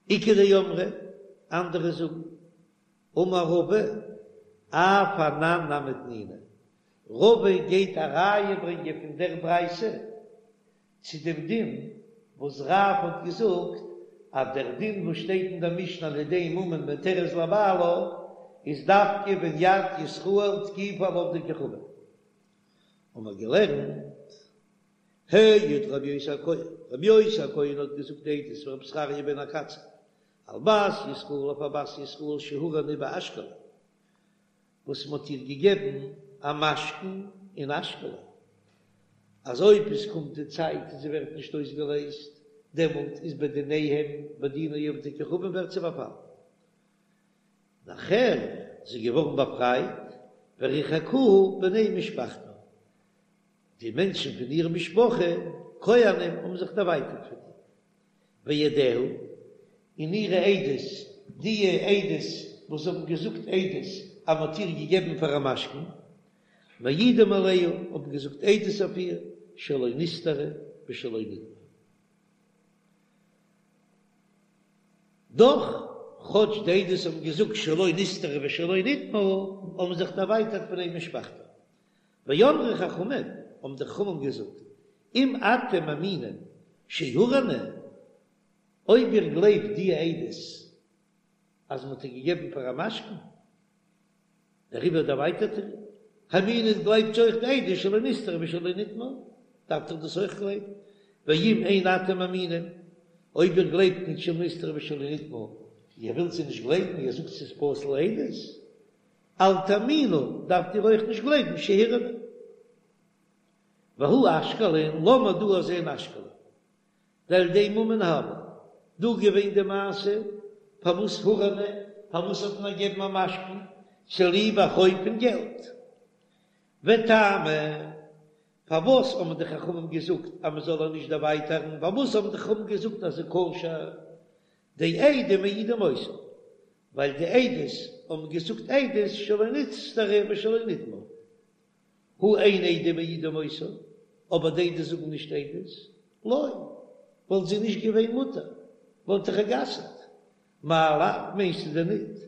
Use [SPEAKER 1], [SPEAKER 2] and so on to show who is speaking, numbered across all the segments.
[SPEAKER 1] איכא דאמרי, אנדערע זאגן, אמר רבא, אף אנן נמי תנינא, רבא גייט א ראיה ברענגען פון דער ברייתא צו דעם דין וואס רב האט געזאגט אז דער דין וואס שטייט אין דער משנה על ידי ממון מותרת לבעלה איז דווקא ווען יד ישראל תקיפה על עובדי כוכבים. האבן מיר געלערנט העיד רבי יוסי הכהן, רבי יוסי הכהן האט געזאגט עדות ורבי זכריה בן הקצב על בת ישראל אויף א בת ישראל שהורענה באשקלון וואס מען האט איר געגעבן א משכון אין אשקלון, אז אויב עס קומט די צייט און זי ווערט נישט אויסגעלייזט, דעמאלט איז בדיניהם בדיני עובדי כוכבים ווערט זי באפאלן. נאכער איז זי געווארן באפרייט, וריחקוה בני משפחתה, די מענטשן פון איר משפחה, כהנים, האבן זיך דערווייטערט פון איר. ועדיה, און אירע עדות, די עדות וואס האבן געזאגט עדות אז מען האט איר געגעבן פאר א משכון, מעידים עליה, האבן געזאגט עדות אויף איר, שלא נסתרה ושלא נטמאה. דאך, כאטש די עדות האבן געזאגט שלא נסתרה ושלא נטמאה, האבן זיך דערווייטערט בני משפחתה. ואמרו חכמים, האבן די חכמים געזאגט, אם אתם מאמינים שהורענה, אויב איר גלייבט די עדות אז מ'האט איר געגעבן פאר א משכון, דעריבער דערווייטערט איר, האמינו גלייבט אויך די עדות שלא נסתרה ושלא נטמאה, דארפט איר דאס אויך גלייבן, ואם אין אתם מאמינים, אויב איר גלייבט נישט שלא נסתרה ושלא נטמאה, איר ווילט זיי נישט גלייבן, איר זאגט ס'איז פסול עדות, אל תאמינו, דארפט איר אויך נישט גלייבן שהורענה. והא אשקלון, לאמיר דא זען אשקלון. דעל ידי ממון הוה. דא געווען די מעשה, פארוואס הורענה, פארוואס האט מען געגעבן א משכון, צוליב א חוב פון געלט. וטעמא, פארוואס האבן די חכמים געזאגט אז מען זאל איר נישט דערווייטערן, פארוואס האבן די חכמים געזאגט אז ס'איז כשר, דעדים מעידים אותה, ווייל די עדות האבן געזאגט עדות שלא נסתרה ושלא נטמאה, הא אין עדים מעידים אותה, אבער די עדות זאגן נישט עדות, לא, וואלט זי נישט געווען מותר, וואלט איך איר גע'אסר'ט. מאי לאו, מיינסטו דען ניט?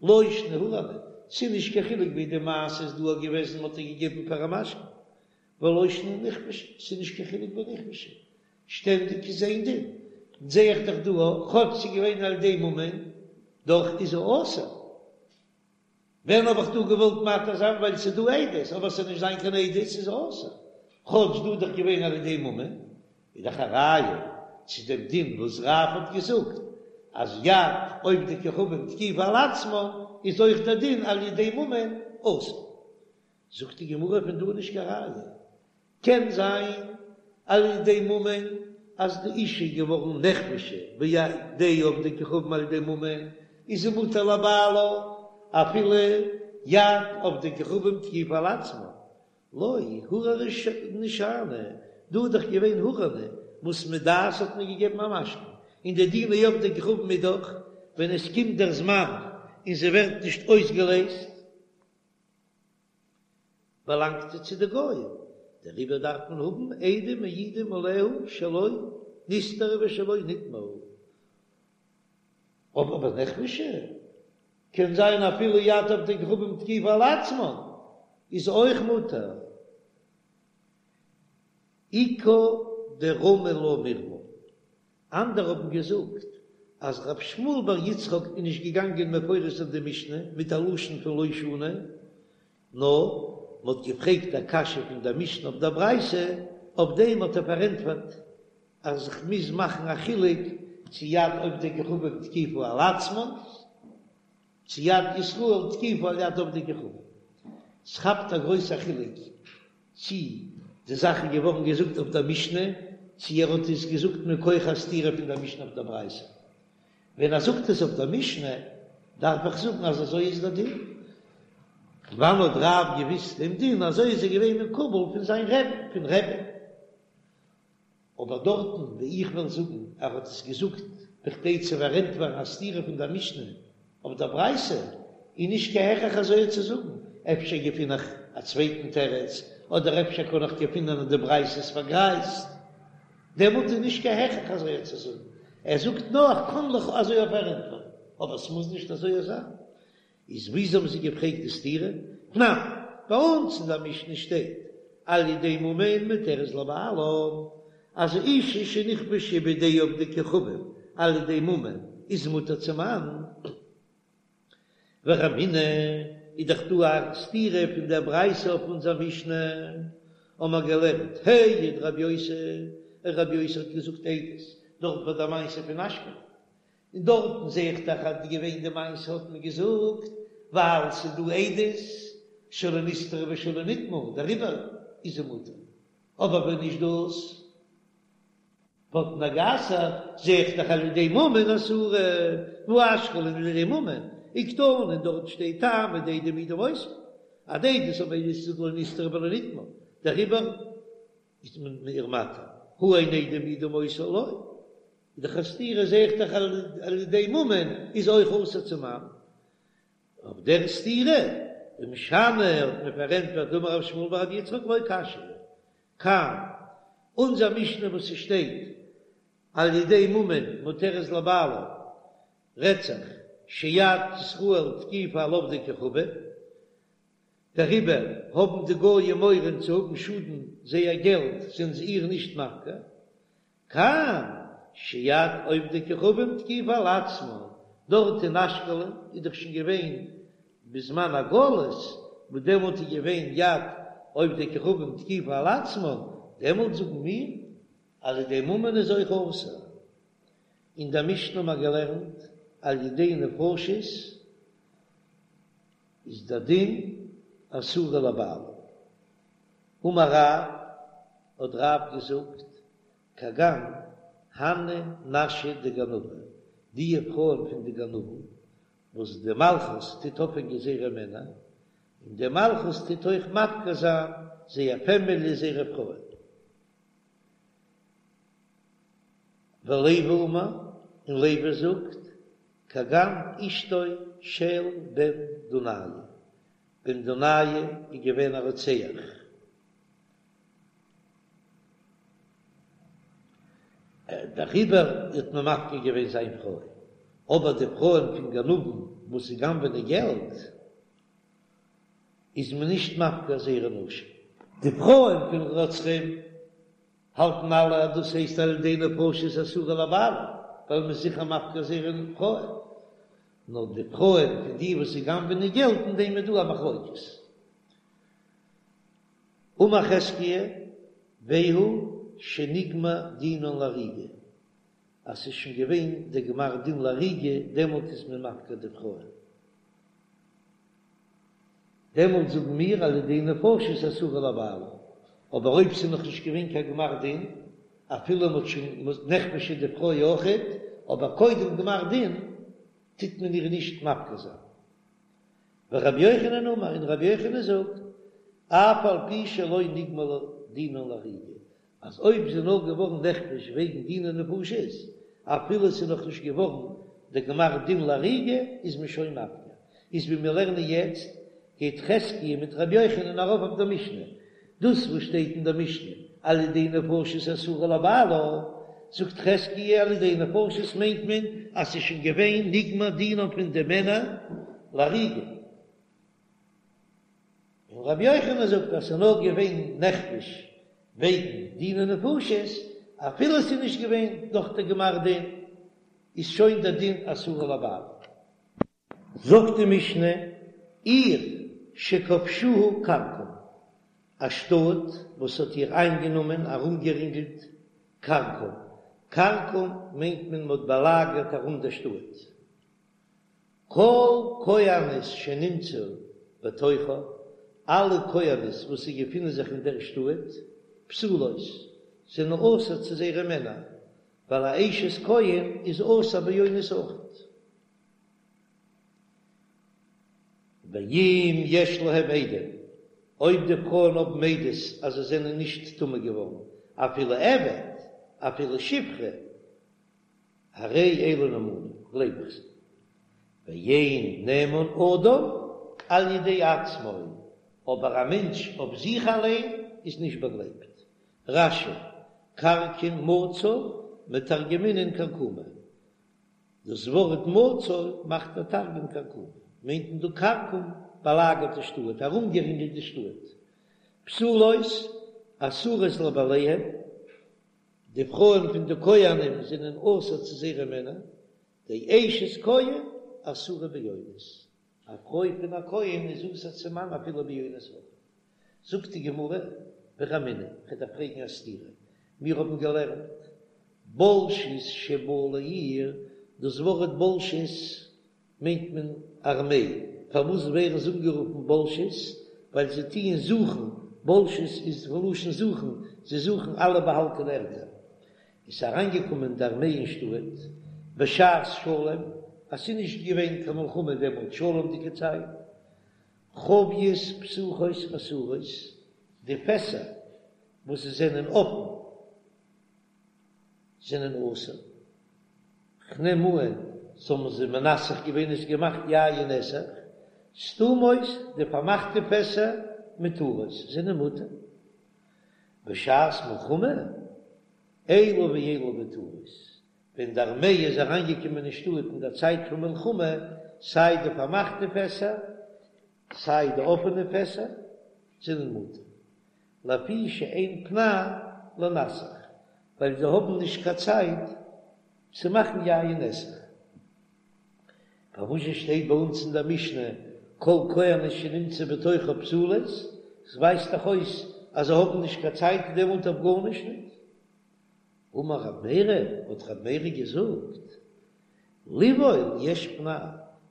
[SPEAKER 1] לא שנא הורענה, ס'איז נישט קיין חילוק ווי די מעשה איז דא געוועזן מ'האט איר געגעבן פאר א משכון, ולא שנא נכבשה, ס'איז נישט קיין חילוק ביי נכבשה, שטענדיג איז איין דין, זע איך דאך דא אויך, כאטש ס'איז געווען על ידי ממון, דאך איז זי אסור. ווען האב איך דא געוואלט מתיר זיין ווייל ס'איז דא עדות, אבער ס'זאל נישט זיין קיין עדות איז אסור, כאטש דא איז דאך געווען על ידי ממון, איז דאך א ראיה צו דעם דין וואס רב האט געזאגט אז יד עובדי כוכבים תקיפה על עצמה איז אויך דער דין על ידי ממון אסור. זאגט די גמרא פון דא איז נישט קיין ראיה, קען זיין על ידי ממון אז די אישה איז געווארן נכבשה בידי עובדי כוכבים על ידי ממון איז זי מותר לבעלה אפילו יד עובדי כוכבים תקיפה על עצמה, לא הורענה שאני, דא איז דאך געווען הורענה וואס מדעת האט מען געגעבן א משכון, און די דיני עובדי כוכבים איז דאך ווען עס קומט דער זמן און זי ווערט נישט אויסגעלעזט. באלאנגט זי צו די גוים, דעריבער דארף מען האבן עדים מעידים עליה שלא נסתרה ושלא נטמאה. אבער ביי נכבשה קען זיין אפילו יד עובדי כוכבים תקיפה על עצמה איז אויך מותר. איכא דרמי לה מירמא, אנדערע האבן געזאגט אז רב שמואל בר יצחק איז נישט געגאנגען מפרש זיין די משנה מיט א לשון פון לא שנו, נאר מ'האט געפרעגט א קשיא פון דער משנה אויף דער ברייתא, אויף דעם האט ער פארענטפערט אז איך מוז מאכן א חילוק צו יד עובדי כוכבים תקיפה על עצמן, צו יד ישראל תקיפה על יד עובדי כוכבים. ס'כאפט א גרויסע חילוק צי די זאך איז געווארן געזאגט אויף דער משנה, צי ער האט עס געזאגט מכח א סתירה פון דער משנה אויף דער ברייתא. ווען ער זאגט עס אויף דער משנה, דארף איך זאגן אז אזוי איז דער דין. וואנען האט רב געוויסט דעם דין, אזוי איז ער געווען מקובל פון זיין רבי'ן, פון רבי'ן. אבער דארטן וואו איך וועל זאגן ער האט עס געזאגט בכדי צו פארענטפערן א סתירה פון דער משנה אויף דער ברייתא, איז נישט קיין הכרח אזוי צו זאגן, אפשר געפין איך א צווייטן תירוץ, אדער אפשר קען איך געפינען אז די ברייתא איז פארגרייזט, דעמאלט איז נישט קיין הכרח אזוי צו זאגן. ער זאגט נאר איך קען לך אזוי אויף פארענטפערן, אבער ס'מוז נישט אזוי זיין. איז וויאזוי האבן זיי געפרעגט די סתירה? תנן, ביי אונז אין דער משנה שטייט על ידי ממון מותרת לבעלה, אז אשה שנכבשה בידי עובדי כוכבים על ידי ממון איז מותר צום מאן. ורמינהו, איז דאך דא א סתירה פון דער ברייתא אויף אונזער משנה, האמער געלערנט העיד רבי יוסי, רבי יוסי האט געזאגט עדות דארט ביי דער מעשה פון אשקלון, און דארטן זע איך דאך אז געווען די מעשה האט מען געזאגט ווייל ס'איז דא עדות שלא נסתרה ושלא נטמאה דעריבער איז זי מותר, אבער ווען נישט דאס וואלט מען גע'אסר'ט, זע איך דאך על ידי ממון אסורה, והא אשקלון על ידי ממון, וקתני און דארט שטייט טעמא דעדים מעידין אותה, אז די עדות האבן עדות געזאגט לא נסתרה ולא נטמאה, דעריבער איז מען איר מתיר, הא אין עדים מעידים אותה לא. איז דאך א סתירה זע איך דאך על ידי ממון איז אויך אסור צום מאן. אויף דער סתירה ומשני האט מען פארענטפערט דאמר רב שמואל בר רבי יצחק לא קשיא כאן אונזער משנה וואס ס'שטייט על ידי ממון מותרת לבעלה רעדט זיך שיד ישראל תקיפה על עובדי כוכבים דעריבער האבן די גויים מורא צו האבן שאדן זייער געלט זענען זיי איר נישט מפקיר כאן שיד עובדי כוכבים תקיפה על עצמן, דארט אין אשקלון איז דאך שוין געווען בזמן הגלות, וואס דעמאלט איז געווען יד עובדי כוכבים תקיפה על עצמן, דעמאלט זאגן מיר אז על ידי ממון איז אויך אסור. אין דער משנה האבן מיר געלערנט על ידי נפשות איז דער דין אסורה לבעלה. אמר רב, האט רב געזאגט, כגון הני נשי דגנבי, די פרויען פון די גנבים, וואס די מלכות טוט אויפהענגען זייערע מענער, און די מלכות טוט אויך מפקיר זיין זייער פעמילי זייערע פרויען. ולוי אמר, און לוי זאגט, כגון אשתו של בן דונאי, בן דונאי איז געווען א רוצח. דעריבער האט מען מפקיר געווען זיין פרוי, אבער די פרויען פון גנבים וואס זיי גנב'ענען געלט איז מען נישט מפקיר זייערע נשים. די פרויען פון רוצחים האלטן אלע אז דאס הייסט על ידי נפשות אסורה לבעלה, ווייל מען איז זיכער מפקיר זייערע פרויען. נאר די פרויען פון די וואס זיי גנב'ענען געלט אין דעם איז דא א מחלוקת. אמר חזקיה, והוא שנגמר דינן להריגה, אז ס'איז שוין געווען דער גמר דין להריגה, דעמאלט איז מען מפקיר די פרויען. דעמאלט זאגן מיר על ידי נפשות אסורה לבעלה, אבער אויב ס'איז נאך נישט געווען קיין גמר דין, אפילו מ'האט שוין נכבשה די פרוי אויכעט, אבער קודם גמר דין טוט מען איר נישט מפקיר זיין. ורבי יוחנן אמר, און רבי יוחנן זאגט, אף על פי שלא נגמר דינן להריגה, אז אויב זי איז נאר געווארן נכבש וועגן דיני נפשות, אפילו ס'איז נאך נישט געווארן די גמר דין להריגה, איז מען שוין מפקיר. איז ווי מיר לערנען יעצט, גייט חזקיה מיט רבי יוחנן ארויף אויף דער משנה. דאס וואס שטייט אין דער משנה על ידי נפשות אסורה לבעלה, זאגט חזקיה על ידי נפשות מיינט מען אז ס'איז שוין געווען נגמר דינם פון די מענער להריגה. און רבי יוחנן זאגט אז ס'איז נאר געווען נכבש וועגן דיני נפשות, אפילו ס'איז נישט געווען נאך די גמר דין, איז שוין דער דין אסורה לבעלה. זאגט די משנה, עיר שכבשוה כרכום, א שטאט וואס האט איר איינגענומען, ארומגערינגלט, כרכום, כרכום מיינט מען מ'האט באלאגערט ארום דער שטאט, כל כהנות שנמצאו בתוכה, אלע כהנות וואס זיי געפינען זיך אין דער שטאט, פסולות, זענען אסור צו זייערע מענער, ווייל א אשת כהן איז אסור באונס אויכעט. ואם יש להם עדים, אויב די פרויען האבן עדות אז זיי זענען נישט טמא געווארן, אפילו עבד, אפילו שפחה, הרי אלו נאמנים, גלייב איך זיי. ואין נאמן אדם על ידי עצמו, אבער א מענטש אויף זיך אליין איז נישט באגלייבט. רש"י, כרכום מצא, מתרגמינן כרכומא. דאס ווארט מצור מאכט דער תרגום כרכומא, מיינט מען דא כרכום באלאגערט די שטאט, ארומגערינגלט די שטאט. פסולות אסורות לבעליהן, די פרויען פון די כהנים זענען אסור צו זייערע מענער, דאשת כהן אסורה באונס, א פרוי פון א כהן איז אסור צום מאן אפילו באונס אויך. זאגט די גמרא, ורמינהו, כ'וועל דיר פרעגן א סתירה, מיר האבן געלערנט בולשות שבאו לעיר, דאס ווארט בולשות מיינט מען ארמעי, פארוואס ווערן זיי אנגערופן בולשות? ווייל זיי טוען זוכן, בולשות איז פון לשון זוכן, זיי זוכן אלע באהאלטענע ערטער. איז אריינגעקומען די ארמעי אין שטאט בשעת שלום, אז ס'איז נישט געווען קיין מלחמה דעמאלט, שלום'דיגע צייט, חביות פתוחות אסורות, די פעסער וואס זענען אפן זענען אסור, כ'נעם אן זיי האבן זיי מנסך געווען עס געמאכט יין נסך, סתומות די פארמאכטע פעסער מותרות זענען מותר, בשעת מלחמה אלו ואלו מותרות, ווען די ארמעי איז אריינגעקומען אין שטאט אין דער צייט פון מלחמה, סיי די פארמאכטע פעסער סיי די אפענע פעסער זענען מותר, לפי שאין פנאי לנסך, ווייל זיי האבן נישט קיין צייט צו מאכן יין נסך. פארוואס שטייט ביי אונז אין דער משנה כל כהנות שנמצאו בתוכה פסולות? עס ווייזט דאך אויס אז זיי האבן נישט קיין צייט דעמאלט אויף גארנישט ניט. אמר רב מרי, האט רב מרי געזאגט, לבעול יש פנאי,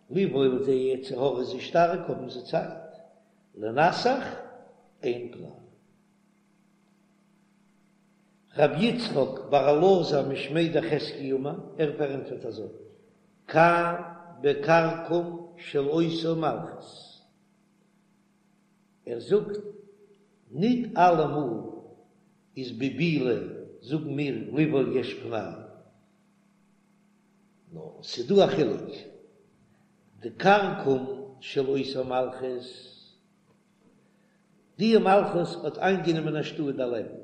[SPEAKER 1] לבעול זייער יצר הרע איז שטארק האבן זיי צייט, לנסך אין פנאי. רבי יצחק בר אלעזר משמיה דחזקיה אמר, ער פארענטפערט אזוי, כאן בכרכום של אותה מלכות, ער זאגט, ניט אלעמאל איז בבעילה זאגן מיר לבעול יש פנאי, נאר ס'דא א חילוק, די כרכום של אותה מלכות, די מלכות האט איינגענומען א שטאט דערלעבן,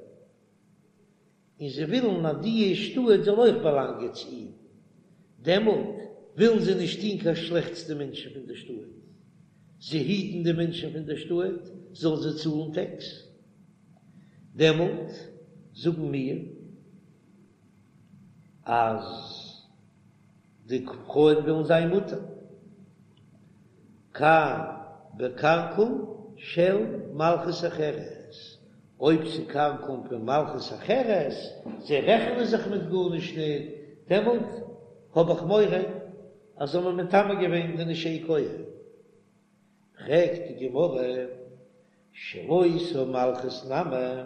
[SPEAKER 1] און זיי ווילן אז די שטאט זאל אויך באלאנגען צו אים, דעמאלט ווילן זיי נישט טון קיין שלעכטס די מענטשן פון די שטאט, זיי היטן די מענטשן פון די שטאט זאלן זיי צאלן טעקס, דעמאלט זאגן מיר אז די פרויען וועלן זיין מותר. כאן בכרכום של מלכות אחרת, אויב ס'כרכום פון מלכות אחרת, זיי רעכענען זיך מיט גארנישט ניט, דעמאלט האב איך מורא אז זיי האבן מטמא געווען די נשי כהן. פרעגט די גמרא, של אותה מלכות נמי,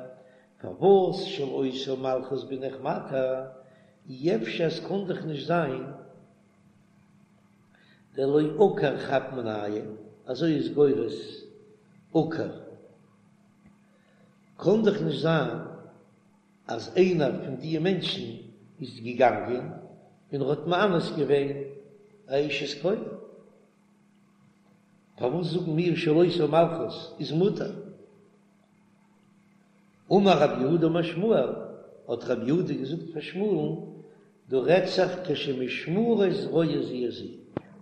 [SPEAKER 1] פארוואס של אותה מלכות בין איך מתיר, אי אפשר עס קאן דאך נישט זיין דלא עקר חד מינייהו, אזוי איז גורס עקר, קאן דאך נישט זיין אז איינער פון די מענטשן איז געגאנגען און ער האט מאנס געווען א אשת כהן. פארוואס זאגן מיר של אותה מלכות איז מותר? אמר רב יהודה אמר שמואל, האט רב יהודה געזאגט פאר שמואל'ן, דא רעדט זיך כשמשמרות רואות זו את זו.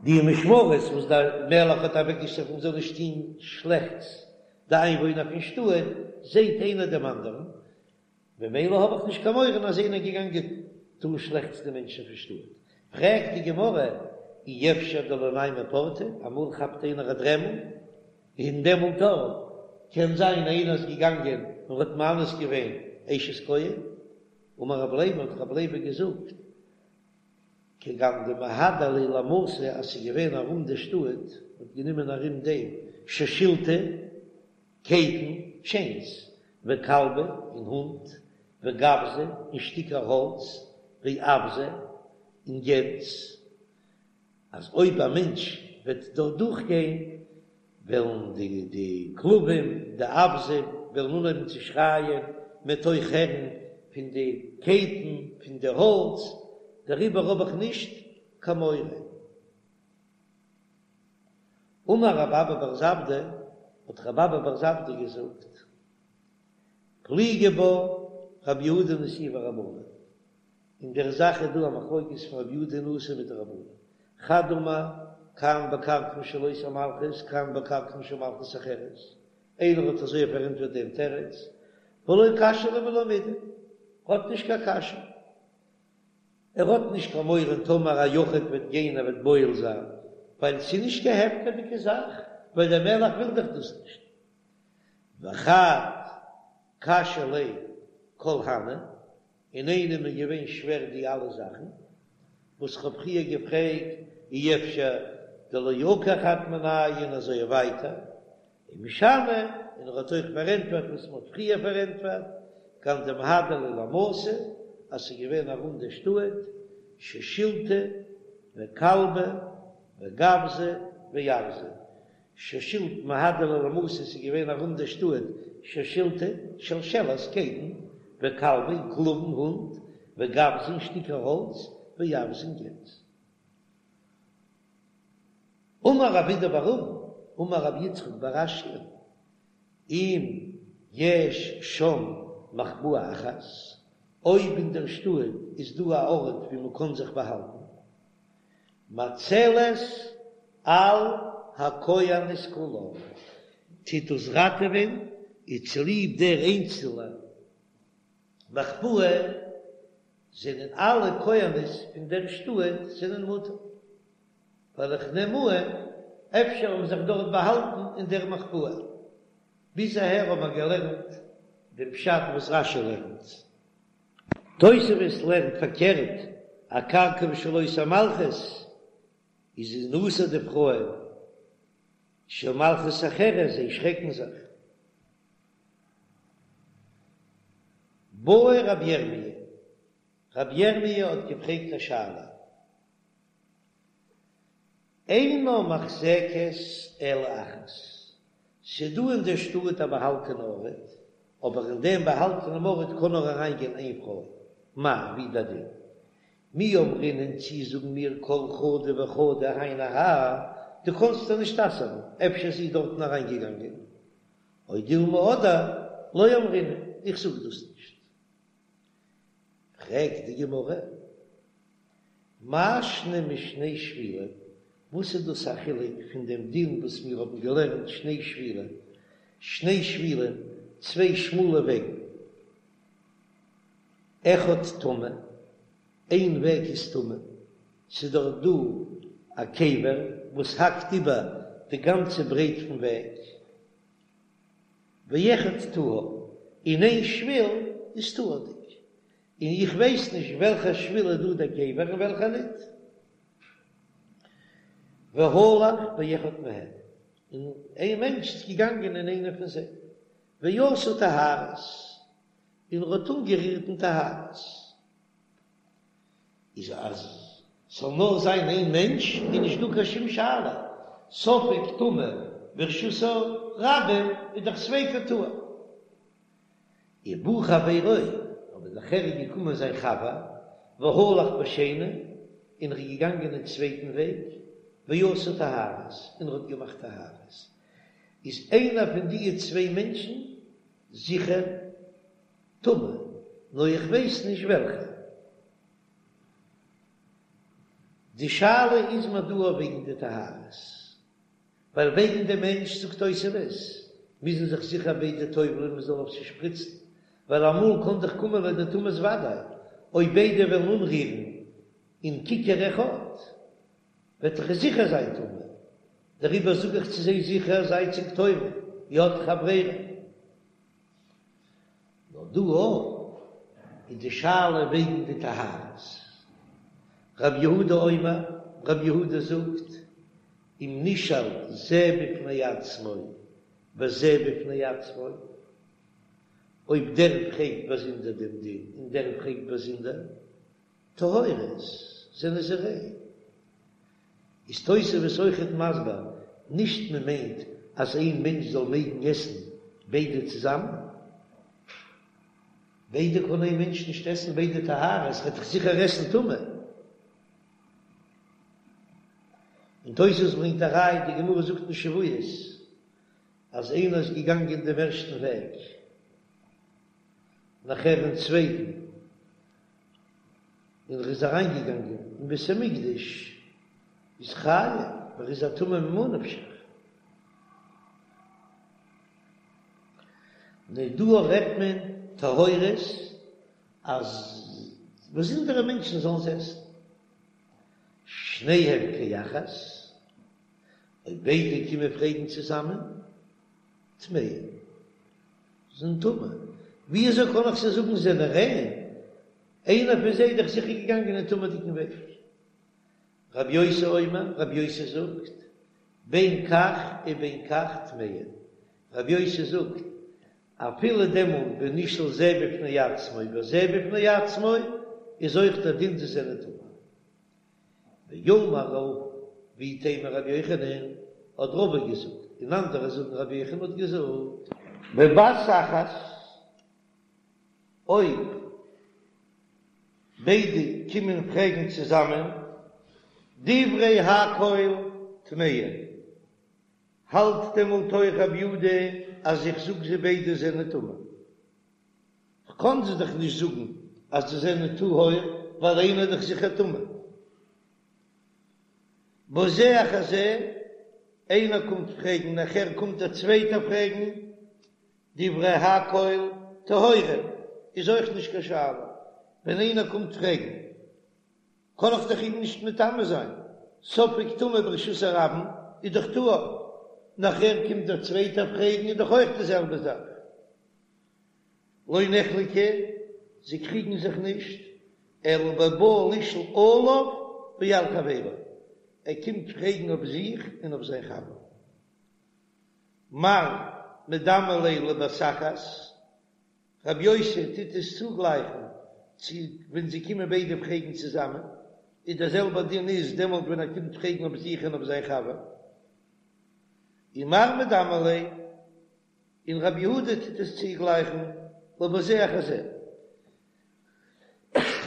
[SPEAKER 1] די משמרות וואס דער מלך האט אוועקגעשטעלט מען זאל נישט טון שלעכטס די איינוואוינער פון שטאט, זעט איינער דעם אנדערן, ממילא האב איך נישט קיין מורא אז איינער איז געגאנגען טון שלעכטס די מענטשן פון שטאט. פרעגט די גמרא, אי אפשר דלא ניימא פורתא, אמאל כאפט איינער א דרעמל, און דעמאלט אויך קען זיין איינער איז געגאנגען און האט מאנס געווען אשת כהן. אמר רב לוי, האט רב לוי געזאגט, כגון דמהדר להו למתא אז ס'איז געווען ארום די שטאט, מ'האט גענומען ארום דעם שושילתא, קייטן, טשעינס, וכלבא, און הונט, וגווזא, און שטיקער האלץ, ואווזא, און גענז, אז אויב א מענטש וועט דארט דורכגיין, וועלן די די כלבים, די אווזים, וועלן אנהויבן צו שרייען, מ'וועט אויך הערן פון די קייטן, פון די האלץ, דעריבער האב איך נישט קיין מורא. אמר רב אבא בר זבדא, האט רב אבא בר זבדא געזאגט, פליגי בה רבי יהודה נשיאה ורבנן. אין דער זאך איז דא א מחלוקת פון רבי יהודה נשיא מיט די רבנן. חד אמר, כאן בקרקעין של אותה מלכות, כאן בקרקעין של מלכות אחרת. איינער האט אזוי פארענטפערט דעם תירוץ, ולא קשיא ליה ולא מידי, האט נישט קיין קשיא. ער האט נישט קיין מורא טאמער א יחיד וועט גיין ער וועט בועל זיין, ווייל ס'איז נישט קיין הפקר'דיגע זאך, ווייל דער מלך וויל דאך דאס נישט. וחד קשיא ליה כל הני, און איינעם איז געווען שווער די אלע זאכן וואס כ'האב פריער געפרעגט, אי אפשר דלא עקר חד מינייהו און אזוי ווייטער, ומשני, און ער האט אויך פארענטפערט וואס מ'האט פריער פארענטפערט, כגון דמהדר להו למתא, אז ס'איז געווען ארום די שטאט, שושילתא וכלבי וגווזי ואווזי, שושילתא מהדר להו למתא ס'איז געווען ארום די שטאט שושילתא שלשלת קייטן וכלבי און כלבים הונט וגווזי און שטיקער האלץ ואווזי און גענז. אמר רב אידי בר אבין אמר רבי יצחק בר אשיאן אם יש שם מחבאה אחת אויב אין דער שטאט איז דא א ארט ווי מ'קען זיך באהאלטן מצלת על הכהנות כולן, טוט דאס ראטעווען, איז צוליב דער איינצעלע מחבאה זענען אלע כהנות פון דער שטאט זענען מותר, ווייל איך נעם אן אפשר האבן זיך דארט באהאלטן אין דער מחבאה. ביז אהער האבן מיר געלערנט דעם פשט וואס רש"י לערנט. תוספות לערנט פארקערט, אקרקעין של אותה מלכות איז אסור די פרויען של מלכות אחרת, זיי שרעקן זיך. בעי רבי ירמי', רבי ירמי' האט געפרעגט א שאלה. אינה מוחזקת אלא אחת, ס'דא אין דער שטאט א באהאלטענע ארט, אבער אין דעם באהאלטענעם ארט קען נאר אריינגיין איין פרוי, מהו, ווי דער דין? מי אמרינן צי זאגן מיר כל חדא וחדא היינו הך, דו קאנסט איר נישט אסר'ן, אפשר זי איז דארטן אריינגעגאנגען, או דילמא אדער לא אמרינן, איך זאג דאס נישט. פרעגט די גמרא, מאי שנא משני שבילים, וואס איז דאס א חילוק פון דעם דין וואס מיר האבן געלערנט שני שבילים, שני שבילים, צוויי שמאלע וועגן, אחד טמא, איין וועג איז טמא, ס'איז דארט דא א קבר וואס האקט איבער די גאנצע ברייט פון וועג, ואחד טהור, און איין שביל איז טהור'דיג, און איך ווייס נישט וועלכע שביל איז דא דער קבר און וועלכע ניט. והלך באחד מהן, און איין מענטש איז געגאנגען אין איינע פון זיי, ועשה טהרות, און ער האט אנגערירט אין טהרות. איז אז ס'זאל נאר זיין איין מענטש איז נישט דא קיין שום שאלה, ספק טמא ברשות הרבים איז דאך ספיקו טהור. ובא חברו, אבער נאכער איז געקומען זיין חבר, והלך בשני, און ער איז געגאנגען אין צווייטן וועג, ועשה טהרות, און ער האט געמאכט טהרות. איז איינער פון די צוויי מענטשן זיכער טמא, נאר איך ווייס נישט וועלכע. די שאלה איז מיר דא וועגן די טהרות, ווייל וועגן די מענטש זאגט תוספות מוזן זיך זיכער ביידע טובל'ען מען זאל אויף זיי שפריצן, ווייל אמאל קען דאך קומען לידי טומאת ודאי, אויב ביידע וועלן אנרירן אין ככר אחד וועט דאך עס זיכער זיין טמא, דעריבער זאג איך צו זיי זיכער זייט זיך טובל, איר האט דאך א ברירה. נאר דא אויך איז די שאלה וועגן די טהרות. רב יהודה אומר, רב יהודה זאגט, אם נשאל זה בפני עצמו וזה בפני עצמו, אויב דער פרעגט באזונדער דעם דין און דער פרעגט באזונדער, טהורות, זענען זיי ריין. איז תוספות אויכעט מסביר, נישט מען מיינט אז איין מענטש זאל מעגן עסן ביידע צוזאמען, ביידע קען איין מענטש נישט עסן ביידע טהרות, וועט דאך זיכער עסן טמא. און תוספות ברענגט א ראיה, די גמרא זאגט אין שבועות אז איינער איז געגאנגען דעם ערשטן וועג, נאכער אין צווייטן. און ער איז אריינגעגאנגען אין בית המקדש, איז חייב, ווייל ער איז א טמא ממה נפשך. נו דא רעדט מען טהורות אז באזונדערע מענטשן זאלן עס עסן. שניהם כאחת, אויב ביידע קומען פרעגן צוזאמען, טמאים, זענען טמא. ווי אזוי קען איך זיי זאגן זענען ריין? איינער פון זיי איז דאך זיכער געגאנגען אין טמא'דיגן וועג. רבי יוסי אומר, רבי יוסי זאגט, בין כך ובין כך טמאין. רבי יוסי זאגט, אפילו דעמאלט ווען נשאל זה בפני עצמו וזה בפני עצמו, איז אויך דער דין זיי זענען טמא. ואמר רבא, ואיתימא רבי יוחנן, האט רבא געזאגט, און אנדערע זאגן רבי יוחנן האט געזאגט. בבת אחת, אויב ביידע קומען פרעגן צוזאמען, דברי הכל טמאין, האלט דעמאלט אויך רבי יהודה אז איך זאג זיי ביידע זענען טמא? כ'קען זיי דאך נישט זאגן אז זיי זענען טהור ווייל איינער איז דאך זיכער טמא. בזה אחר זה, איינער קומט פרעגן נאכער קומט דער צווייטער פרעגן, דברי הכל טהורים איז אויך נישט קיין שאלה, ווען איינער קומט פרעגן קען איך דאך אים נישט מטמא זיין, ספק טומאה ברשות הרבים איז דאך טהור, נאכער קומט דער צווייטער פרעגן איז דאך אויך די זעלבע זאך. לא נחלקו, זיי קריגן זיך נישט, אלא בבא לשאול עליו ועל חברו, ער קומט פרעגן אויף זיך און אויף זיין חבר. מר מדמי ליה לבת אחת, רבי יוסי טוט עס צוגלייכן צו ווען זיי קומען ביידע פרעגן צוזאמען, איז דער זעלבער דין איז דעמאלט ווען ער קומט פרעגן אויף זיך און אויף זיין חבר. ומר מדמי ליה, און רבי יהודה טוט עס צוגלייכן לבזה אחר זה.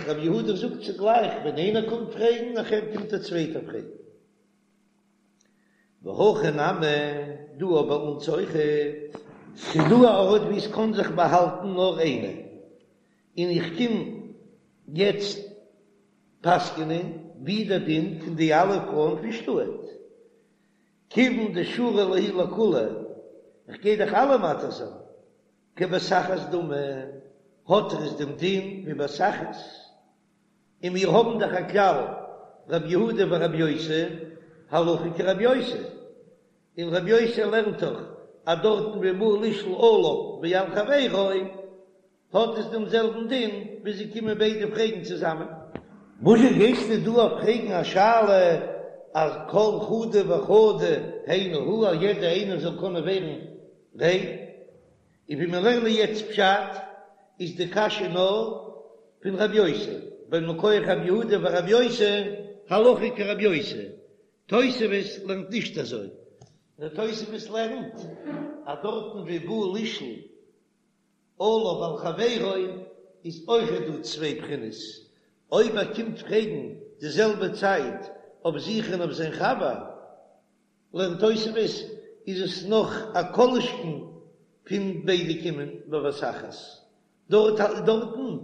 [SPEAKER 1] רבי יהודה זאגט צוגלייך ווען איינער קומט פרעגן נאכער קומט דער צווייטער פרעגן. והכא נמי, דא ביי אונז אויכעט. ס'איז דא א ארט וואו עס קען זיך באהאלטן נאר איינער, און איך קום יעצט פסק'נען ווי דער דין פון די אלע פרויען פון שטאט, כיוון דשרי להו לכולהו, איך גיי דאך אלע מתיר זיין, כבת אחת דמי, האט ער עס דעם דין ווי בת אחת. און מיר האבן דאך א כלל, רבי יהודה ורבי יוסי, הלכה כרבי יוסי, און רבי יוסי לערנט דאך אז דארטן ווי בא לשאול עליו ועל חברו האט עס דעם זעלבן דין ווי זיי קומען ביידע פרעגן צוזאמען. וואזשע גייסטו דא אויף פרעגן א שאלה אז כל חדא וחדא היינו הא אז יעדע איינער זאל קענען ווערן ריין? און ווי מיר לערנען יעצט פשט איז די קשיא נאר פון רב יוסי, ווייל מכח רב יהודה ורב יוסי הלכה כרב יוסי, תוספות לערנט נישט אזוי, נאר תוספות לערנט אז דארטן ווי בא לשאול עליו ועל חברו איז אויכעט דא צוויי בחינות, אויב ער קומט פרעגן די זעלבע צייט אויף זיך און אויף זיין חבר, לערנט תוספות איז עס נאך א כל שכן פון ביידע קומען בבת אחת, דארט דארטן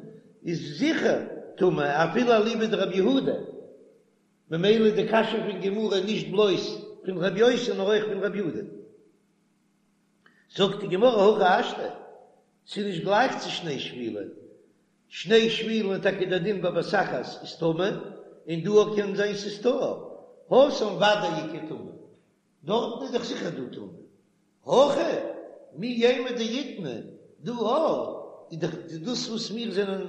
[SPEAKER 1] איז זיכער טמא אפילו אליבא דרבי יהודה, ממילא איז די קשיא פון גמרא נישט בלויז פון רבי יוסי נאר אויך פון רבי יהודה. זאגט די גמרא הכי השתא, ס'איז נישט גלייך צו שני שבילים, שני שבילים איז טאקע דער דין בבת אחת איז טמא, און דא קען זיין ס'איז טהור, התם ודאי איכא טומאה, דארטן איז דאך זיכער דא טומאה, הכא מי יימר דאיטמי, דא איז דאך דאס וואס מיר זענען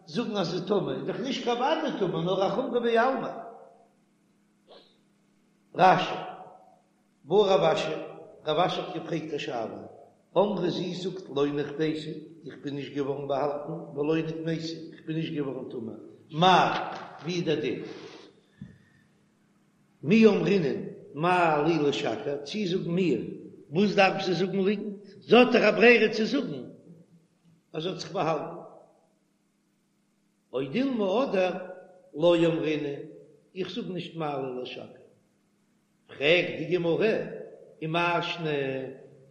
[SPEAKER 1] זאגן אז ס'איז טמא איז דאך נישט קיין ודאי טומאה נאר א חומרא בעלמא. רש"י. בעי רב אשי, רב אשי האט געפרעגט א שאלה, אמרה זי זאגט לא נחבאתי, איך בין נישט געווארן באהאלטן, ולא נטמאתי, איך בין נישט געווארן טמא, מאי, ווי איז דער דין? מי אמרינן מה לי לשקר, צי זאגן מיר, וואס דארף זי זאגן ליגנט, זי האט דאך א ברירה צו זאגן אז זי האט זיך באהאלטן. או דילמא אדער לא אמרינן, איך זאג נישט מה לי לשקר. פרעגט די גמרא, ומאי שנא,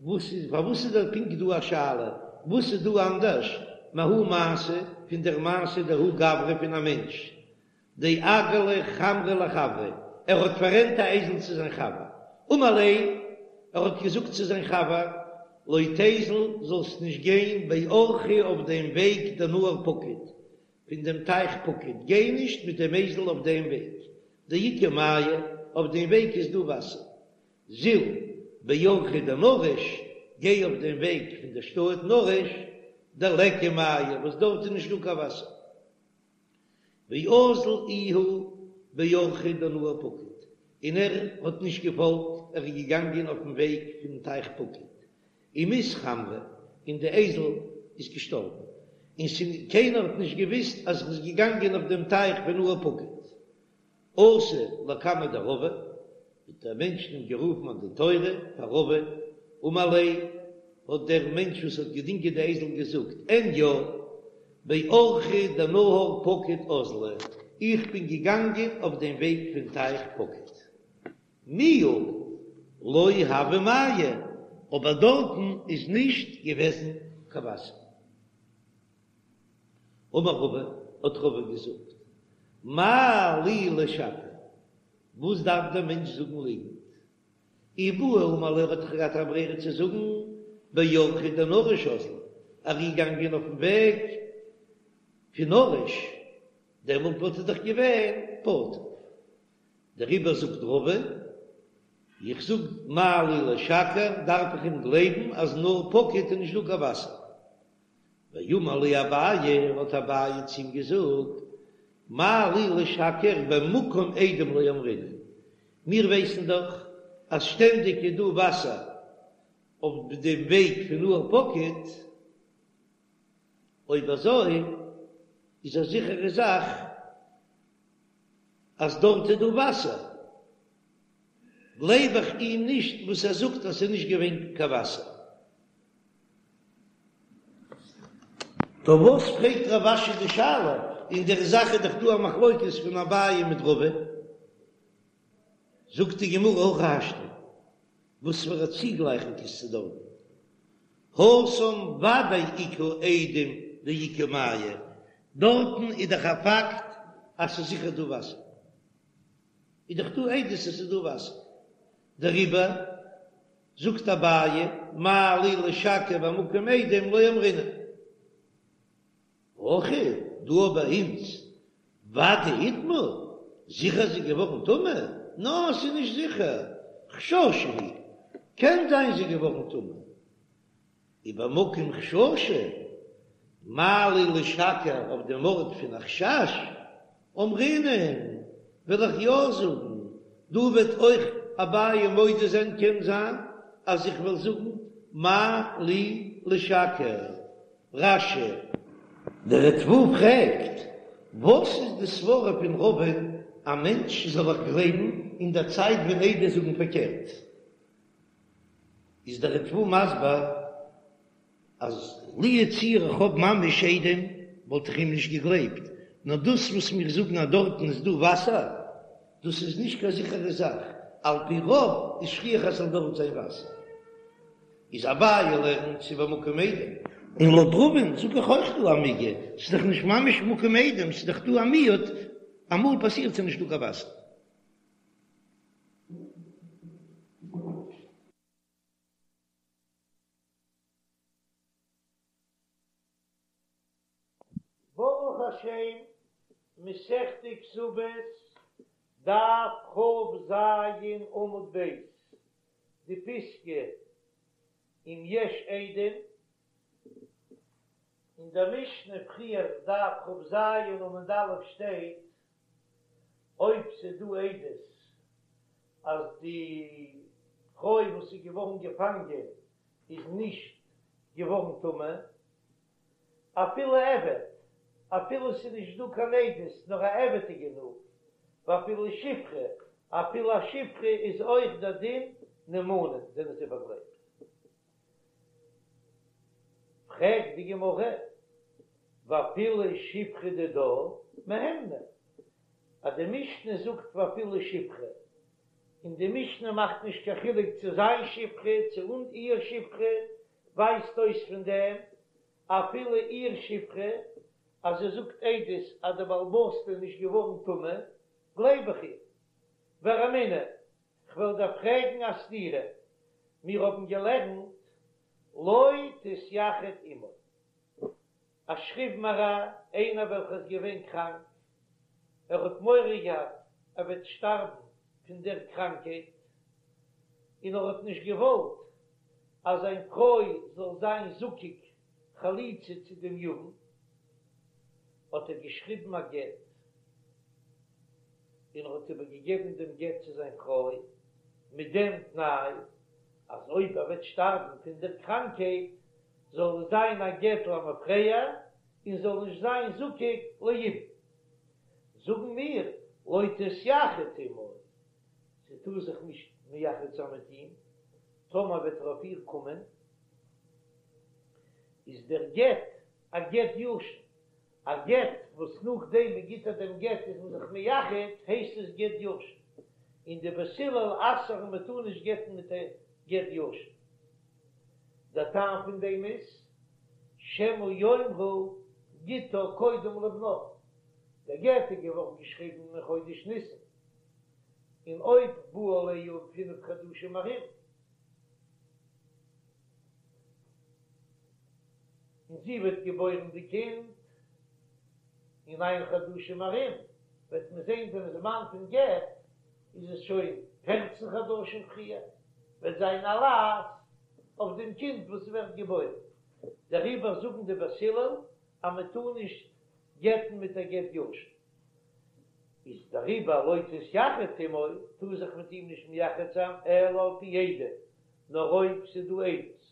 [SPEAKER 1] וואס איז, פארוואס איז דער פונקט דא א שאלה, וואס איז דא אנדערש מההוא מעשה, פון דער מעשה דההוא גברא פון א מענטש? דאגר ליה חמרא לחבריה, ער האט פאררענט א אייזל צו זיין חבר, אמר ליה, ער האט געזאגט צו זיין חבר, לא תיזל, זאלסט נישט גיין באורחא אויף דעם וועג דנהר פקוד, פון דעם טייך פקוד, גיי נישט מיט דעם אייזל אויף דעם וועג, דאיכא מיא, אויף דעם וועג איז דא וואסער, זיל באורחא דנרש, גיי אויף דעם וועג פון דער שטאט נרש, דליכא מיא, וואס דארט איז נישט דא קיין וואסער. ואזל איהו באורחא דנהר פקוד, און ער האט נישט געפאלגט, ער איז געגאנגען אויפן וועג פון טייך פקוד, ומית חמרא, און די אייזל איז געשטארבן, און קיינער האט נישט געוויסט אז ער איז געגאנגען אויף דעם טייך פון נהר פקוד. אתא לקמיה דרבא, האט דער מענטש אים גערופן א דין תורה פאר רבא, אמר ליה, האט דער מענטש וואס האט געדינגען די אייזל געזאגט, אין יא, באורחא דנהר פקוד אזלי, איך בין געגאנגען אויף דעם וועג פון טייך פקוד. מיהו לא הוה מיא, אבער דארטן איז נישט געוועזן קיין וואסער. אמר רבא, האט רבא געזאגט, מה לי לשקר, וואס דארף דער מענטש זאגן ליגנט? אי בעי אמר ליה, ער האט דאך געהאט א ברירה צו זאגן באורחא דנרש אזלי, ער איז געגאנגען אויפן וועג פון נרש, דעמאלט וואלט ער דאך געווען פטור. דעריבער זאגט רבא, איך זאג מה לי לשקר, דארף איך אים גלייבן אז נהר פקוד איז נישט דא קיין וואסער. ואמר ליה אביי, האט אביי צו אים געזאגט, מה לי לשקר במקום עדים לא אמרינן, מיר ווייסן דאך אז שטענדיג איז דא וואסער אויף דעם וועג פון נהר פקוד, אויב אזוי איז א זיכערע זאך אז דארט איז דא וואסער, גלייב איך אים נישט וואס ער זאגט אז ס'איז נישט געווען קיין וואסער. טא וואס פרעגט רב אשי די שאלה? אין דער זאך איז דאך דא א מחלוקת פון אביי מיט רבא. זאגט די גמרא הכי השתא, וואס פאר א צוגלייכונג איז צו דארטן? התם ודאי איכא עדים דאיכא מיא, דארטן איז דאך א פאקט אז ס'איז זיכער דא וואסער, איז דאך דא עדות אז ס'איז דא וואסער, דעריבער זאגט אביי, מה לי לשקר במקום עדים לא אמרינן. הכא, דא ביי אונז, ודאי איטמאה, זיכער זי איז געווארן טמא? נא, ס'איז נישט זיכער, חששא הוא, קען זיין זי איז געווארן טמא. ובמקום חששא, מה לי לשקר אויף דעם ארט פון א חשש, אמרינן, וועל איך יא זאגן, דא וועט אויך אביי מודה זיין קען זיין אז איך וועל זאגן מה לי לשקר. רש"י. דער ריטב"א פרעגט, וואס איז די סברה פון רבא'ן א מענטש זאל איך גלייבן אין דער צייט ווען עדות זאגן פארקערט? איז דער ריטב"א מסביר אז לו יצוייר איך האב ממש עדים וואלט איך אים נישט געגלייבט, נאר דאס וואס מיר זאגן אז דארטן איז דא וואסער, דאס איז נישט קיין זיכערע זאך, על פי רוב איז שכיח אז ס'זאל דארט זיין וואסער. איז אביי לערנט ס'איז במקום עדים. און לויט רבא'ן זאג איך אויך דא א מיגו, ס'איז דאך נישט ממש מקום עדים, ס'איז דאך דא א מיעוט, אמאל פאסירט ס'איז נישט דא קיין וואסער. ברוך השם, מסכת כתובות, דף כ"ז עמוד ב', די פיסקא אם יש עדים, אין דער משנה פריער דף כ"ז עמוד א' שטייט, אויב ס'איז דא עדות אז די פרוי וואס איז געווארן געפאנגען איז נישט געווארן טמא, אפילו עבד, אפילו ס'איז נישט דא קיין עדות נאר א עבד איז גענוג, ואפילו שפחה, אפילו א שפחה איז אויך דער דין נאמנים זענען זיי באגלייבט. פרעגט די גמרא, ואפילו שפחה דידה מהימנא, אז די משנה זאגט ואפילו שפחה, און די משנה מאכט נישט קיין חילוק צו זיין שפחה צו אן איר שפחה, ווייזט אויס פון דעם אפילו איר שפחה. אז זי זאגט עדות אז די בעל הבית'טע איז נישט געווארן טמא, גלייב איך איר. ורמינהו, כ'וועל דיר פרעגן א סתירה, מיר האבן געלערנט לא תתייחד עמו, א שכיב מרע, איינער וועלכער איז געווען קראנק, ער האט מורא געהאט ער וועט שטארבן פון דער קראנקייט, און ער האט נישט געוואלט אז זיין פרוי זאל זיין זקוק חליצה צו דעם יבם, האט ער געשריבן א גט, און ער האט איבערגעגעבן דעם גט צו זיין פרוי, מיט דעם תנאי אז אויב ער וועט שטארבן פון דער קראנקייט, זאל עס זיין א גט למפרע און זאל נישט זיין זקוק ליבום. זאגן מיר, לא תתייחד עמו, זי טאר זיך נישט מייחד זיין מיט אים, טאמער וועט ער אויף איר קומען, איז דער גט א גט ישן, א גט וואס נאכדעם מען גיט איר דעם גט איז מען זיך מייחד, הייסט עס גט ישן, און די בית הלל אסר'ן מען טאר נישט גט'ן מיט א גט ישן. דער טעם פון דעם איז, שמא יאמרו גיטה קודם לבנה, דער גט איז געווארן געשריבן אין חודש ניסן, און אויב בא עליה אין פינף חדשים ארום, און זי וועט געבוירן די קינד אין ניין חדשים ארום, וועט מען זען דעם זמן פון גט איז עס שוין פערצן חדשים פריער, וועט זיין א לעז אויף דעם קינד וואס ווערט געבוירן, דעריבער זאגן די בית הלל אז מען טאר נישט גט'ן מיט א גט ישן, איז דעריבער לא תתייחד עמו, טאר זיך מיט אים נישט מייחד זיין אלא על פי עדים, נאר אויב ס'איז דא עדות,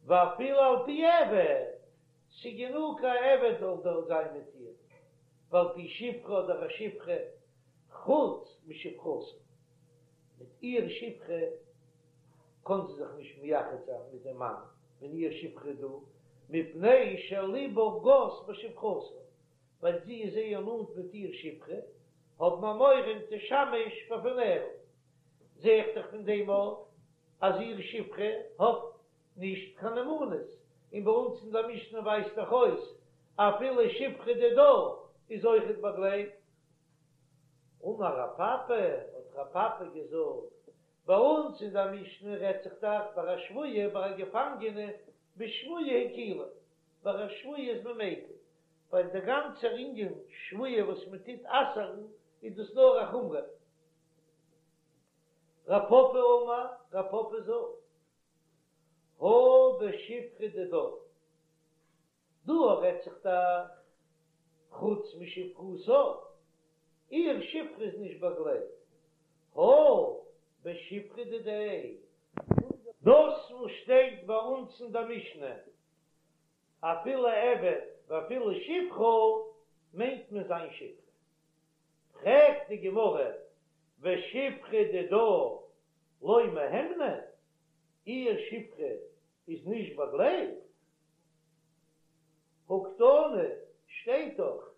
[SPEAKER 1] ואפילו על פי עבד, ס'גענוג א עבד זאל דארט זיין מיט איר, ועל פי שפחה אדער א שפחה, חוץ משפחתה, מיט איר שפחה קען זי זיך נישט מייחד זיין מיט דעם מאן ווען איר שפחה איז דא, מפני שליבה גס בשפחתה, ווייל זי איז זייער נאנט מיט איר שפחה, האבן מיר מורא אם תשמש בפניה, זע איך דאך פון דעם אויך אז איר שפחה האט נישט קיין נאמנות, און ביי אונז אין דער משנה ווייזט דאך אויס אפילו שפחה דידה איז אויכעט באגלייבט. אמר רב פפא, האט רב פפא געזאגט, ביי אונז אין דער משנה רעדט זיך דאך ביי א שבויה, ביי א געפאנגענע, בשבויה הקילו, ביי א שבויה איז מען מיקל, ווייל דער גאנצער ענין שבויה וואס מען טוט אסר'ן איז דאס נאר א חומרא. רב פפא אמר, רב פפא זאגט, הא בשפחה דידה, דא רעדט זיך דאך חוץ משפחתה, איר שפחה איז נישט באגלייבט, הא בשפחה דידיה. דאס וואס שטייט ביי אונז אין דער משנה אפילו עבד ואפילו שפחה מיינט מען זיין שפחה. פרעגט די גמרא ושפחה דידה לא מהימנא, איר שפחה איז נישט באגלייבט? הא קתני, שטייט דאך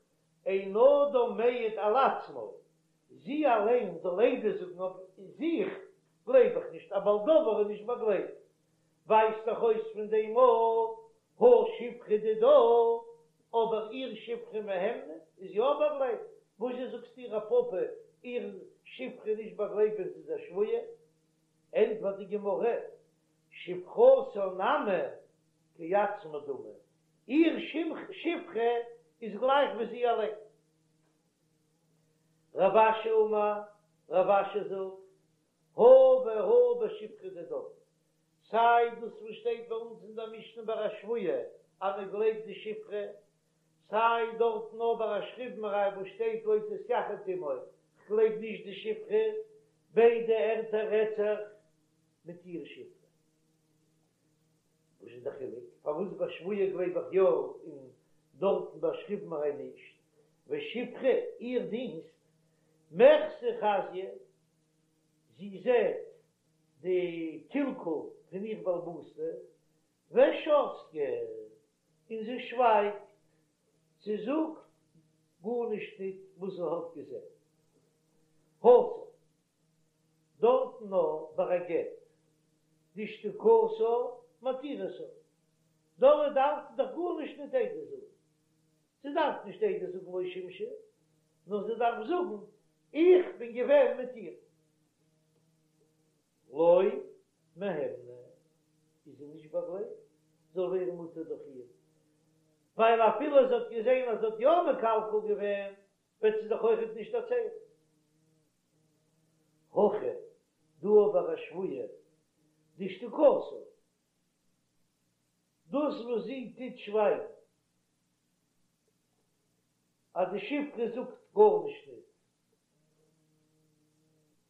[SPEAKER 1] אין אדם מעיד על עצמו, זי אליין זאל עדות זאגן אויף זיך, גלייב איך נישט, א בעל דבר איז נישט באגלייבט, ווייזט דאך אויס פון דעם אז הא שפחה דידה, אבער איר שפחה מהימנא איז יא באגלייבט, וואזשע זאגסטו רב פפא איר שפחה איז נישט באגלייבט ווען זי איז א שבויה? ענטפערט די גמרא, שפחתה נמי כעצמה דמי, איר שפחה איז גלייך ווי זי אליין. רב אשי אמר, רב אשי זאגט, הא והא בשפחה דידה, סיי דאס וואס שטייט ביי אונז אין דער משנה ביי א שבויה אז מען גלייבט די שפחה, סיי דארטן נאר ביי א שכיב מרע וואס שטייט לא תתייחד עמו, כ'גלייב נישט די שפחה, ביידע ערטער רעדט זיך מיט איר שפחה. וואס איז די חילוק? פארוואס ביי שבויה גלייב איך יא און דארטן ביי שכיב מרע נישט? ושפחה, איר דינסט, מחזי חזיא, זי זעט די קלקול פון איר בעל הבית'טע, ושתקא, און זי שווייגט, זי זאגט גארנישט ניט וואס זי האט געזען. התם, דארטן נאר ביי א גט, דשתיקתה מתירתה, דארט דארף זי דאך גארנישט ניט עדות זאגן. זי דארף נישט עדות זאגן לא שימשה, נאר זי דארף זאגן איך בין געווען מיט איר. לא מהימנא איז זי נישט באגלייבט זאל ווערן מותר דורך איר, ווייל אפילו זי האט געזען אז זי האט יא מקלקל געווען, וועט זי דאך אויכעט נישט דערציילן. הכא דא אבער א שבויה דשתיקתה, דאס וואס זי טוט שווייגן אז די שפחה זאגט גארנישט ניט,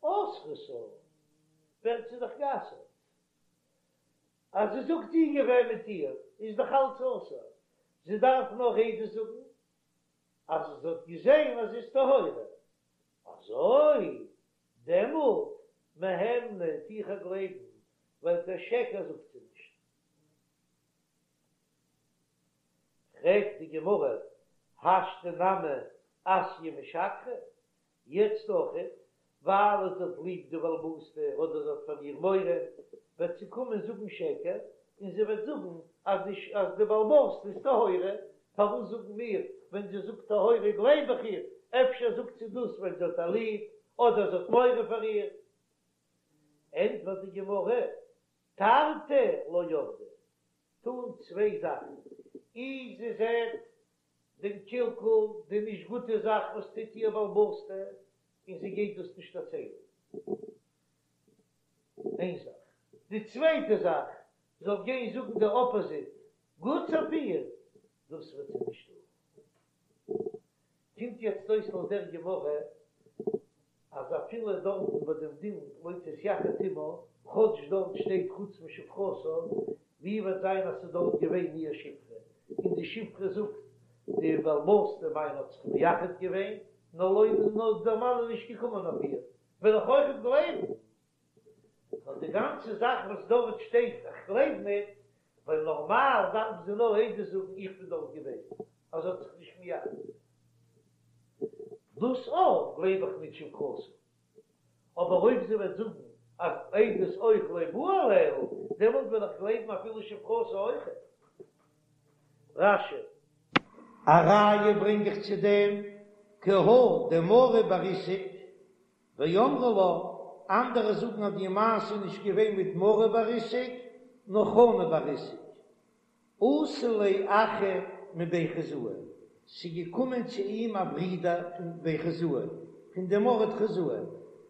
[SPEAKER 1] אסרתה, ווערט זי דאך גע'אסר'ט. אז זי זאגט איך געווען מיט איר, איז דאך אלץ אסור. זי דארף נאר עדות זאגן אז זי האט געזען אז זי איז טהורה. אזוי? דעמאלט מהימנא טו איך איר גלייבן, ווייל קיין שקר זאגט זי נישט. פרעגט די גמרא, השתא נמי אתיא משקרא, יעצט אויכעט, ווייל זי האט ליב די בעל הבית'טע אדער זי האט פאר איר מורא, וועט זי קומען זאגן שקר, און זי וועט זאגן אז די אז די בעל הבית'טע איז טהורה, פארוואס זאגן מיר ווען זי זאגט טהורה גלייב איך איר, אפשר זאגט זי דאס ווייל זי האט איר ליב, אדער זי האט מורא פאר איר? ענטפערט די גמרא, תרתי לא עבדי, טון צוויי זאכן, אי זי זעט דעם קלקול, די נישט גוטע זאך וואס טוט איר בעל הבית'טע, און זי גייט דאס נישט דערציילן, איין זאך. די צווייטע זאך, זאל גיין זאגן די אפאזיט, גוטס אויף איר, דאס וועט זי נישט טון. קומט יעצט אויס לויט דער גמרא אז אפילו דארטן ביי דעם דין לא תתייחד עמה, כאטש דארט שטייט חוץ משפחתה, ווי וועט זיין אז ס'איז דארט געווען איר שפחה, און די שפחה זאגט די בעל הבית'טע מיינע האט זיך מייחד געווען, נאר לויט נאר דער מאן איז נישט געקומען אויף איר, וועל איך אויכעט גלייבן. נאר די גאנצע זאך וואס דארט שטייט איך גלייב ניט, ווייל נארמאל דארף זי נאר עדות זאגן איך בין דארט געווען, אז זי האט זיך נישט מייחד געווען. דאס אויך גלייב איך ניט שפחתה. אבער אויב זי וועט זאגן אז עדות אויך לא בא עליה, דעמאלט וועל איך גלייבן אפילו שפחתה אויכעט. רש"י. א ראיה ברענג איך צו דעם, כי הא דמרי בר איסק ואמרי לה, אנדערע זאגן אז די מעשה איז נישט געווען מיט מרי בר איסק, נאר חנא בר איסק. אתא ליה אחא מבי חוזאי, ס'איז געקומען צו אים א ברודער פון בי חוזאי, פון דעם ארט חוזאי,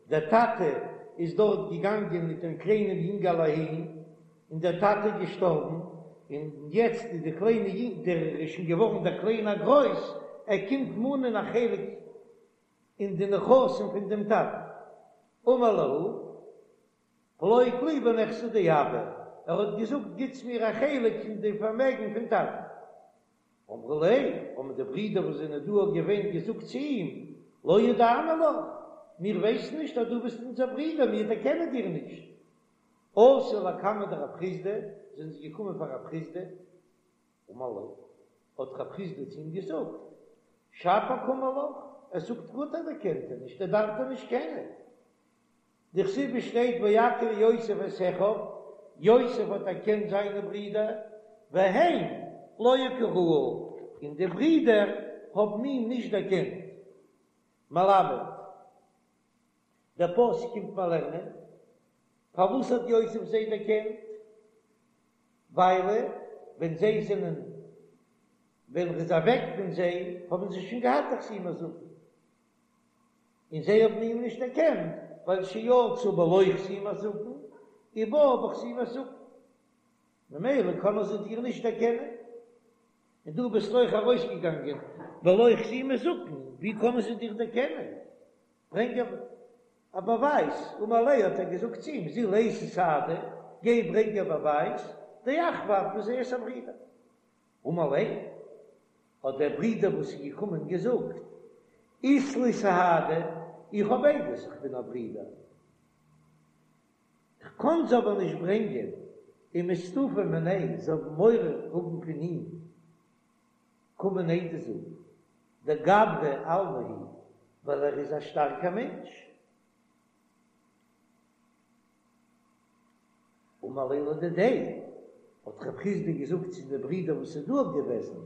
[SPEAKER 1] דער טאטע איז דארט געגאנגען מיט דעם קליינעם יונגעלע אהין, און דער טאטע איז געשטארבן, און יעצט איז די קליינע יונג, דער איז שוין געווארן דער קליינער גרויס, ער קומט מאנען א חלק אין די נכסים פון דעם טאטן. אמר להו, פלוג לי בנכסי דאבא, ער האט געזאגט גיטס מיר א חלק פון די פארמעגן פון טאטן. אמרו ליה, האבן די ברידער וואס זענען דא געווען געזאגט צו אים, לא ידענא לך, מיר ווייסן נישט אז דו ביסט אונזער ברודער, מיר דערקענען דיר נישט. אתו לקמיה דרב חסדא, זענען זיי געקומען פאר רב חסדא, אמר להו, האט רב חסדא צו אים געזאגט, שפיר קאמר לך, ער זאגט גוט אז ער קענט דיר נישט, ער דארף דיר נישט קענען. דכתיב עס שטייט ויכר יוסף את אחיו, יוסף האט דערקענט זיינע ברידער, והם לא הכירוהו, און די ברידער האבן אים נישט דערקענט. מלמד, דער פסוק קומט מיר לערנען, פארוואס האט יוסף זיי דערקענט? ווייל ווען זיי זענען ווען ער איז אוועק פון זיי האבן זיי שוין געהאט א חתימת זקן, און זיי האבן אים נישט דערקענט ווייל שיצא בלא חתימת זקן ובא בחתימת זקן, ממילא קענען זיי דיר נישט דערקענען, און דו ביסט אויך ארויסגעגאנגען בלא חתימת זקן, ווי קענען זיי דיר דערקענען? ברענג א באווייז, אמר ליה האט ער געזאגט צו אים, זיל אייתי סהדי, גיי ברענג א באווייז, דאחוה את, וואס ער איז א ברודער. אמר ליה, האט דער ברודער וואס איז געקומען געזאגט, אית לי סהדי, איך האב עדות איך בין א ברודער, איך קען זיי אבער נישט ברענגען, ומסתפי מיניה, זיי האבן מורא האבן פון אים, קומען עדות זאגן, דגברא אלמא הוא, ווייל ער איז א שטארקער מענטש. אמר ליה לדידיה, האט רב חסדא געזאגט צו די ברידער וואס איז דא געוועזן,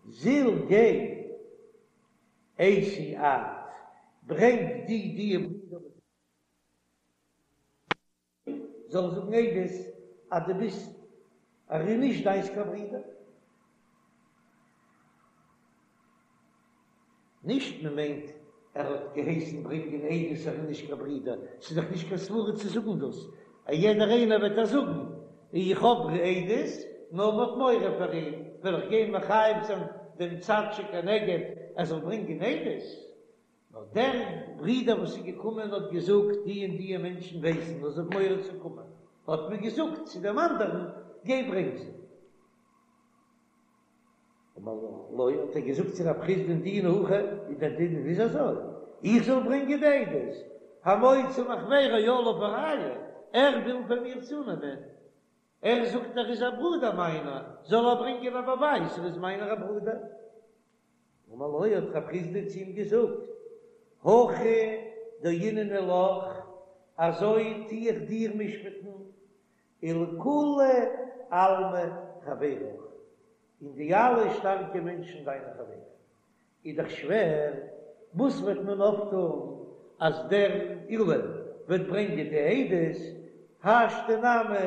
[SPEAKER 1] זיל גיי אייתי את, ברענג די דיע ברידער וואס זאלן זאגן עדות אז דו ביסט ער איז נישט דיינס קיין ברודער. נישט מען מיינט ער האט געהייסן ברענגען עדות ער איז נישט קיין ברודער, ס'איז דאך נישט קיין סברה צו זאגן דאס, א יעדער איינער וועט דאך זאגן איך האב עדות, נאר מ'האט מורא פאר אים, וועל איך גיין מחייב זיין דעם צד שכנגד ער זאל ברענגען עדות. נאר דער ברודער וואס איז געקומען האט געזאגט, די און די מענטשן ווייסן נאר זיי האבן מורא צו קומען, האט מען געזאגט צו דעם אנדערן, גיי ברענג זיי. אמר לו, האט ער געזאגט צו רב חסדא'ן דינא הכי, איז דער דין איז אזוי, איך זאל ברענגען די עדות, המוציא מחבירו עליו הראיה, ער וויל פון מיר צונעמען, ער זאגט ער איז א ברודער מיינער, זאל ער ברענגען א באווייז ער איז מיינער א ברודער. אמר לו האט רב חסדא צו אים געזאגט, הכי דייננא לך, אזוי טו איך דיר משפט'ן, ולכולי עלמא חברך, און די אלע שטארקע מענטשן דיינע חברים. איז דאך שווער, וואס וועט מען אויפטון אז דער עולא וועט ברענגען די עדות, השתא נמי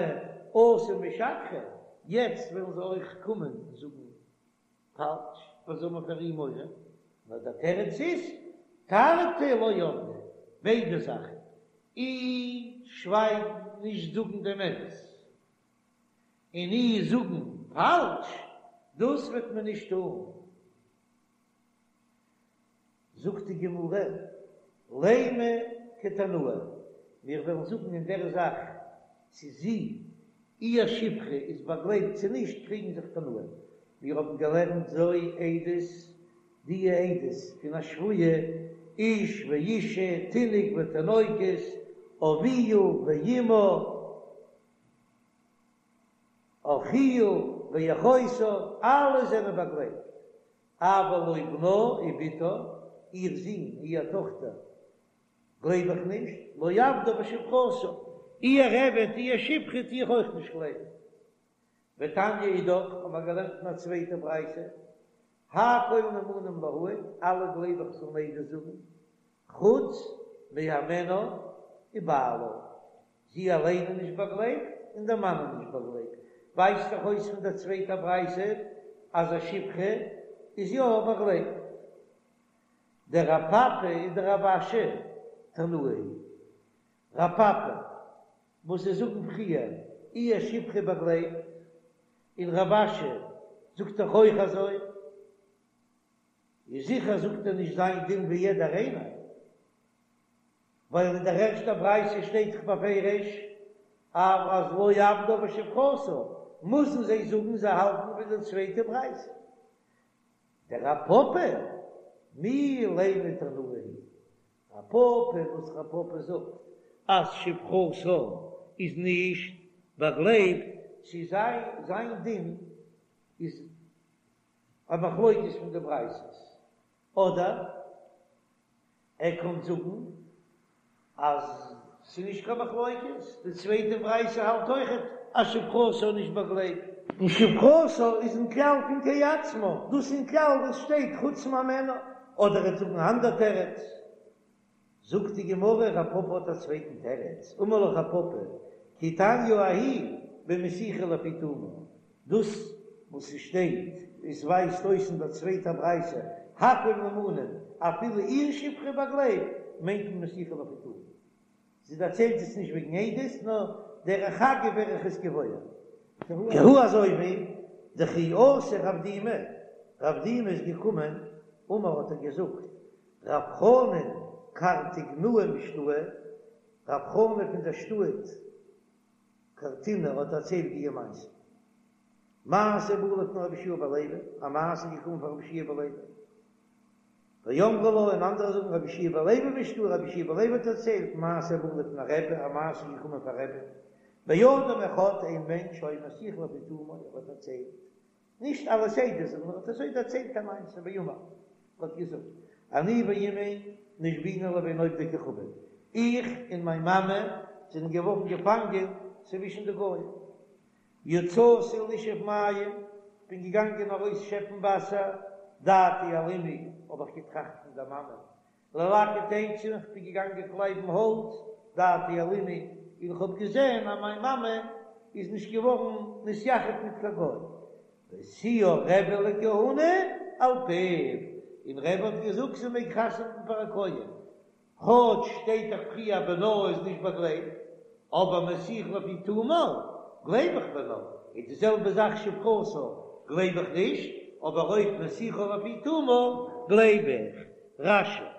[SPEAKER 1] אתו משקרי, יעצט וועלן זיי אויך קומען און זאגן פאלש, וואס זאל מען פאר אים מורא? נאר דער תירוץ איז, תרתי לא עבדי, ביידע זאכן, אי שווייגן נישט זאגן דעם אמת, און אי זאגן פאלש, דאס וועט מען נישט טון. זאגט די גמרא, לימא כתנאי, מיר וועלן זאגן אין דער זאך צו זי, איר שפחה איז באגלייבט צו נישט, קריגן זיך תנאים. מיר האבן געלערנט זו עדות, די עדות פון א שבויה, איש ואישה, תינוק ותינוקת, אביה ואמה, אחיה ואחותה, אלע זענען באגלייבט, אבל לא בנה ובתה, איר זון, איר טאכטער, גלייב איך נישט, לא עבדה ושפחתה, איר עבד, איר שפחה טו איך אויך נישט גלייבן. ותניא אידך, האבן מיר געלערנט אין א צווייטע ברייתא, הכל נאמנים להעיד, אלע גלייב איך זאלן עדות זאגן, חוץ מהימנה ובעלה, זי אליין איז נישט באגלייבט און דער מאן איז נישט באגלייבט, ווייזט דאך אויס פון דער צווייטער ברייתא אז א שפחה איז יא באגלייבט. דרב פפא ודרב אשי תנאי היא. רב פפא, וואס זיי זאגן פריער אי א שפחה באגלייבט, און רב אשי זאגט דאך אויך אזוי, איז זיכער זאגט ער נישט זיין דין ווי יעדער איינער, ווייל אין דער ערשטער ברייתא שטייט דאך בפירוש אז לא עבדה ושפחתה, מוזן זיי זאגן זיי האלטן ווי די צווייטע ברייתא. דרב פפא, מי לימא תנאי היא, רב פפא וואס רב פפא זאגט אז שפחתה איז נישט באגלייבט צו זיין זיין דין איז א מחלוקת פון די ברייתות, אדער ער קען זאגן אז ס'איז נישט קיין מחלוקת, די צווייטע ברייתא האלט אויכעט אז שפחתה איז נישט באגלייבט. און שפחתה איז אין כלל פון כעצמה, דאס אין כלל וואס שטייט חוץ מהימנה, אדער ער וועט זאגן אן אנדער תירוץ. זאגט די גמרא, רב פפא האט א צווייטן תירוץ, אמר לך רב פפא, כי תניא ההיא במסיחה לפי תומה, דאס וואס ס'שטייט, עס ווייזט אויס אין דער צווייטער ברייתא, הכל נאמנים, אפילו איר שפחה באגלייבט, מיינט מען מסיחה לפי תומה. זי דערציילט עס נישט וועגן עדות, נאר דרך אגב ווער איך עס געוואויר. כי הא אזוי ווי דכי אתא רב דימי, רב דימי איז געקומען, אמר האט ער געזאגט, רב חנן קרטיגנאה משתעי, רב חנן פון דער שטאט קרטינא האט דערציילט די מעשה. מעשה בא לפני רבי יהושע בן לוי, א מעשה איז געקומען פאר רבי יהושע בן לוי. ואמרי לה, און אנדערע זאגן רבי יהושע בן לוי משתעי, רבי יהושע בן לוי האט דערציילט מעשה בא לפני רבי, א מעשה איז געקומען פאר רבי. באדם אחד, איין מענטש שהיה מסיח לפי תומו, ער האט דערציילט נישט אלס עדות זאגן, נאר האט אזוי דערציילט א מעשה ואמר, ער האט געזאגט, אני ואמי נשבינו לבין עובדי כוכבים, איך און מיין מאמע זענען געווארן געפאנגען צווישן די גוים, יצאתי לשאוב מים, בין כ'בין געגאנגען ארויס שעפן וואסער, דעתי על אמי, האב איך געטראכט פון דער מאמע, ללקט עצים, כ'בין געגאנגען קלייבן האלץ, דעתי על אמי, און כ'האב געזען אז מיין מאמע איז נישט געווארן נתייחד מיט קיין גוי. והשיאה רבי לכהונה על פיו, און רבי האט געזאגט זי מעג חתונה האבן פאר א כהן, כאטש שטייט דאך פריער בנה איז נישט באגלייבט, אבער מסיח לפי תומו גלייב איך בנה, איז די זעלבע זאך שפחתה גלייב איך נישט, אבער אויב מסיחה לפי תומה גלייב איך. רש"י.